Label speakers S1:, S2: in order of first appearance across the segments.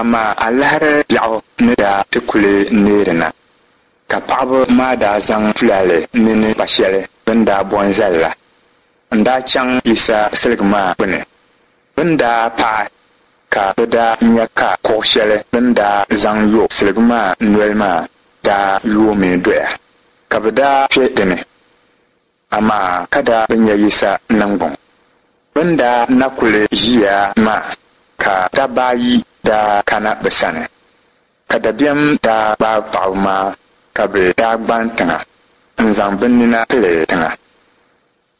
S1: Amaa alahiri biɛɣu ni daa ti kuli neeri na, ka paɣiba maa daa zaŋ tulaale mini kpa shɛli bɛ ni daa bo n-zali la n-daa chaŋ Yisa siligi maa gbini. Bɛ ni daa paai ka bɛ daa nya ka kuɣ shɛli bɛ ni daa zaŋ yo siligi maa noli maa daa yoomi doya, ka bɛ daa kpe di ni, amaa ka daa bi nya Yisa niŋgbuŋ. Bɛ ni daa na kuli ʒiya maa ka dabba ayi daa kana bɛ sani, ka dabiɛm daa gbaai paɣiba maa ka bɛ daa gban tiŋa n-zaŋ bɛ nina pili tiŋa.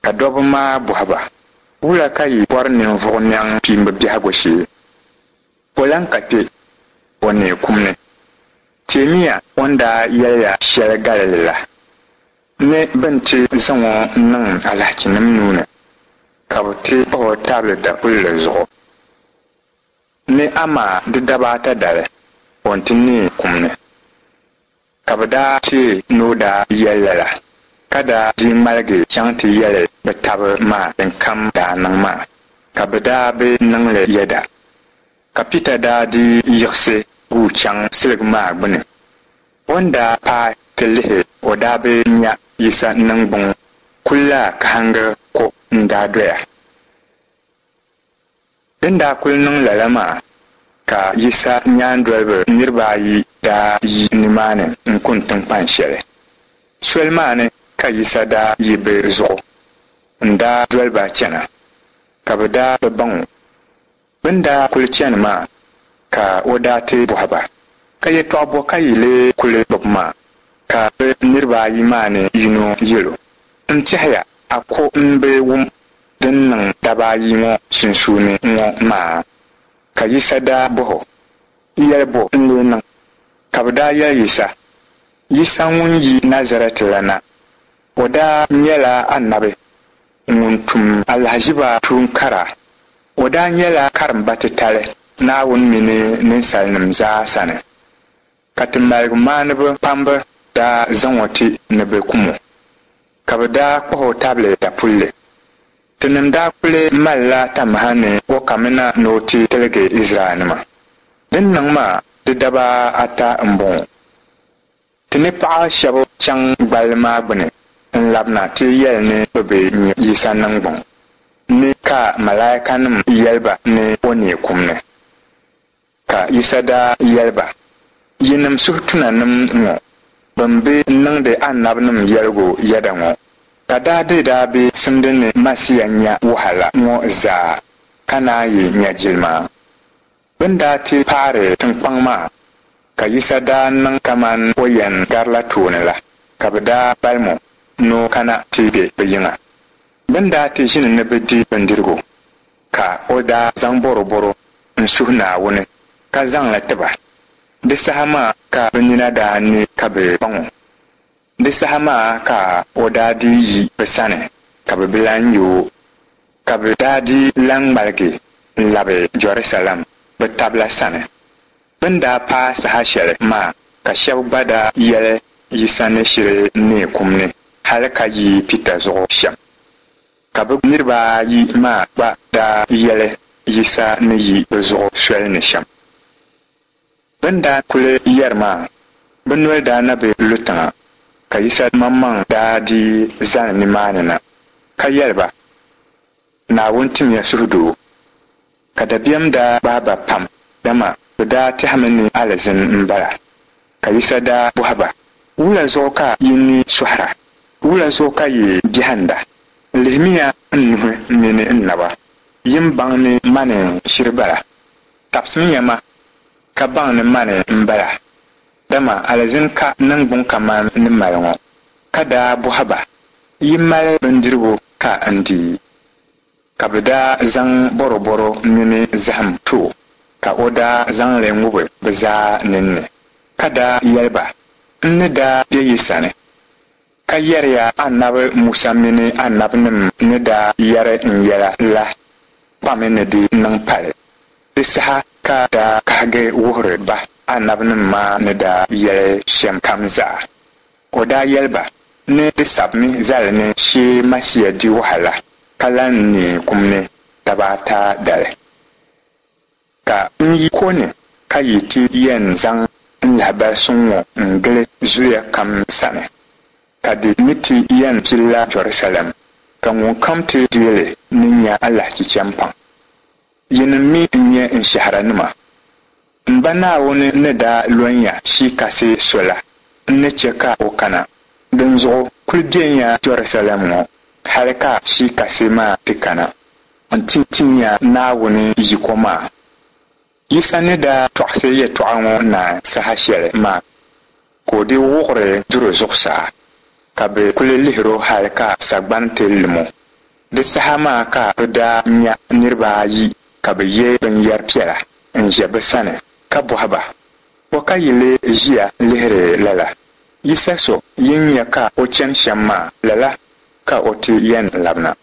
S1: Ka dɔbba maa bɔhi ba, Wula ka yi bɔri ninvuɣ nɛŋ kpiimba biɛhigu shee? O lan ka kpe, o neei kum ni. Teemiya o ni daa yɛli ya shɛli Galili la, ni bɛ ni ti zaŋ o niŋ alahichinim nuu ni, ka bɛ ti kpah o tabili dapulli zuɣu, ni amaa di daba ata dali, o ni ti neei kum ni. Ka bɛ daa teei ni o daa yɛli lala, ka daa dii ŋmaligi chaŋ ti yɛli bɛ tab maa dinkam daa niŋ maa, ka bɛ daa bi niŋ li yɛda. Ka Pita daa dii yiɣisi guui chaŋ siligi maa gbini. O ni daa paai ti lihi o daa bi nya Yisa niŋgbuŋ kulla kahiŋgi ko n-daa doya. Din daa kul niŋ lala maa, ka Yisa nyaandoliba niriba ayi daa yi nimaani n-kuni tiŋkpan shɛli. Soli maa ni ka Yisa daa yi bɛ zuɣu n-daa doli ba chana, ka bɛ daa bi baŋ o. Bɛ ni daa kul chani maa ka o daa ti bɔhi ba, Ka yɛtɔɣ bɔ ka yi lee kul gbib maa? Ka bɛ niriba ayi maa ni yino yɛl o, N tɛhiya a ko m-bi wum din niŋ daba ayi ŋɔ sunsuuni ŋɔ maa? Ka Yisa daa bɔh o, Yɛli bɔ n-lee niŋ? Ka bɛ daa yɛli Yisa, Yisa ŋun yi Nazarɛt la na. O daa nyɛla anabi ŋun tum alahiziba tuun kara. O daa nyɛla karimba titali Naawuni mini ninsalinim zaa sani. Ka ti maligumaaniba kpamba daa zaŋ o ti ni bɛ kum o, ka bɛ daa kpah o tabili dapulli. Tinim daa kuli malila tamaha ni o kamina ni o ti tiligi Izraɛlnima. Din niŋ maa di daba ata m-bɔŋɔ. Ti ni paɣ shɛb chaŋ gballi maa gbini n-labina ti yɛli ni bɛ bi nya Yisa niŋgbuŋ ni ka malaikanim yɛli ba ni o neei kum ni. Ka Yisa daa yɛli ba, Yinim suhutunanim ŋɔ bɛn bi niŋdi anabinim yɛligu yɛda ŋɔ, ka daa di daa bi simdi ni Masia nya wahala ŋɔ zaa ka naan yi nya jilima? Bɛ ni daa ti paari tiŋkpaŋ maa, ka Yisa daa niŋ kaman o yɛn garila tooni la, ka bɛ daa balim o ni o kana ti be bɛ yiŋa. Bɛ ni daa ti ʒini ni bɛ di bindirigu, ka o daa zaŋ bɔrɔbɔro n-suhi Naawuni ka zaŋ li ti ba. Di saha maa ka bɛ nina daa ne ka bɛ baŋ o. Di saha maa ka o daa dii yi bɛ sani ka bɛ bi lan nya o, ka bɛ daa dii lan ŋmaligi n-labi Jɛrusalɛm bɛ tab la sani. Bɛ ni daa paai saha shɛli maa ka shɛb gba daa yɛli Yisa ni shiri neei kum ni hal ka yi Pita zuɣu shɛm. Ka bɛ niriba ayi maa gba daa yɛli Yisa ni yi bɛ zuɣu soli ni shɛm. Bɛ ni daa kuli yɛri maa, bɛ noli daa na bi lu tiŋa, ka Yisa maŋmaŋ daa dii zani nimaani na, ka yɛli ba, Naawuni timiya suhudoo. Ka dabiɛm daa gbaai ba pam, dama bɛ daa tɛhimi ni alizin m-bala. Ka Yisa daa bɔhi ba, Wula zuɣu ka yi ni sɔhira? Wula zuɣu ka yi biɛhinda? Lihimiya n nuhi mini n naba, yi ni baŋ ni mani n-shiri bala. Tabisimiya ma, ka baŋ ni mani m-bala, dama alizin ka niŋgbuŋ kaman n ni mali ŋɔ. Ka daa bɔhi ba, Yi mali bindirigu ka n di? Ka bɛ daa zaŋ bɔrɔbɔro mini zahim ti o, ka o daa zaŋ li ŋubi bɛ zaa ninni, ka daa yɛli ba, N ni daa be yi sani, ka yɛri ya Anabi Musa mini anabinim ni daa yɛri n yɛla la kpami ni di niŋ pali. Di saha ka daa kahigi wuhiri ba anabinim maa ni daa yɛli shɛm kam zaa. O daa yɛli ba ni di sabimi zali ni shee Masia di wahala ka lan neei kum ni daba ata dali. Ka n yi ko ni Ka yi ti yɛn zaŋ n lahibal suŋ ŋɔ n-gili zuliya kam sani, ka di mi ti yɛn pilila Jɛrusalɛm, ka ŋunkam ti deei li ni nya alahichi chɛ m-paŋ. Yinim mi n-nyɛ n shɛhiranima. M Ba Naawuni ni daa lɔn ya Shii Kasi so la, n ni chɛ ka o kana. Dinzuɣu kul benya Jɛrusalɛm ŋɔ hal ka Shii Kasi maa ti kana nti tin ya Naawuni yiko maa. Yisa ni daa tɔɣisi yɛtɔɣa ŋɔ naai saha shɛli maa, ka o dii wuɣiri duri zuɣusaa, ka bɛ kul lihir o hal ka sagbani ti lim o. Di saha maa ka bɛ daa nya niriba ayi ka bɛ ye binyɛr piɛla n-ʒe bɛ sani ka bɔhi ba, Bɔ ka yi lee ʒiya lihiri lala? Yisa so yi ni nya ka o chani shɛm maa, lala ka o ti yɛn labina.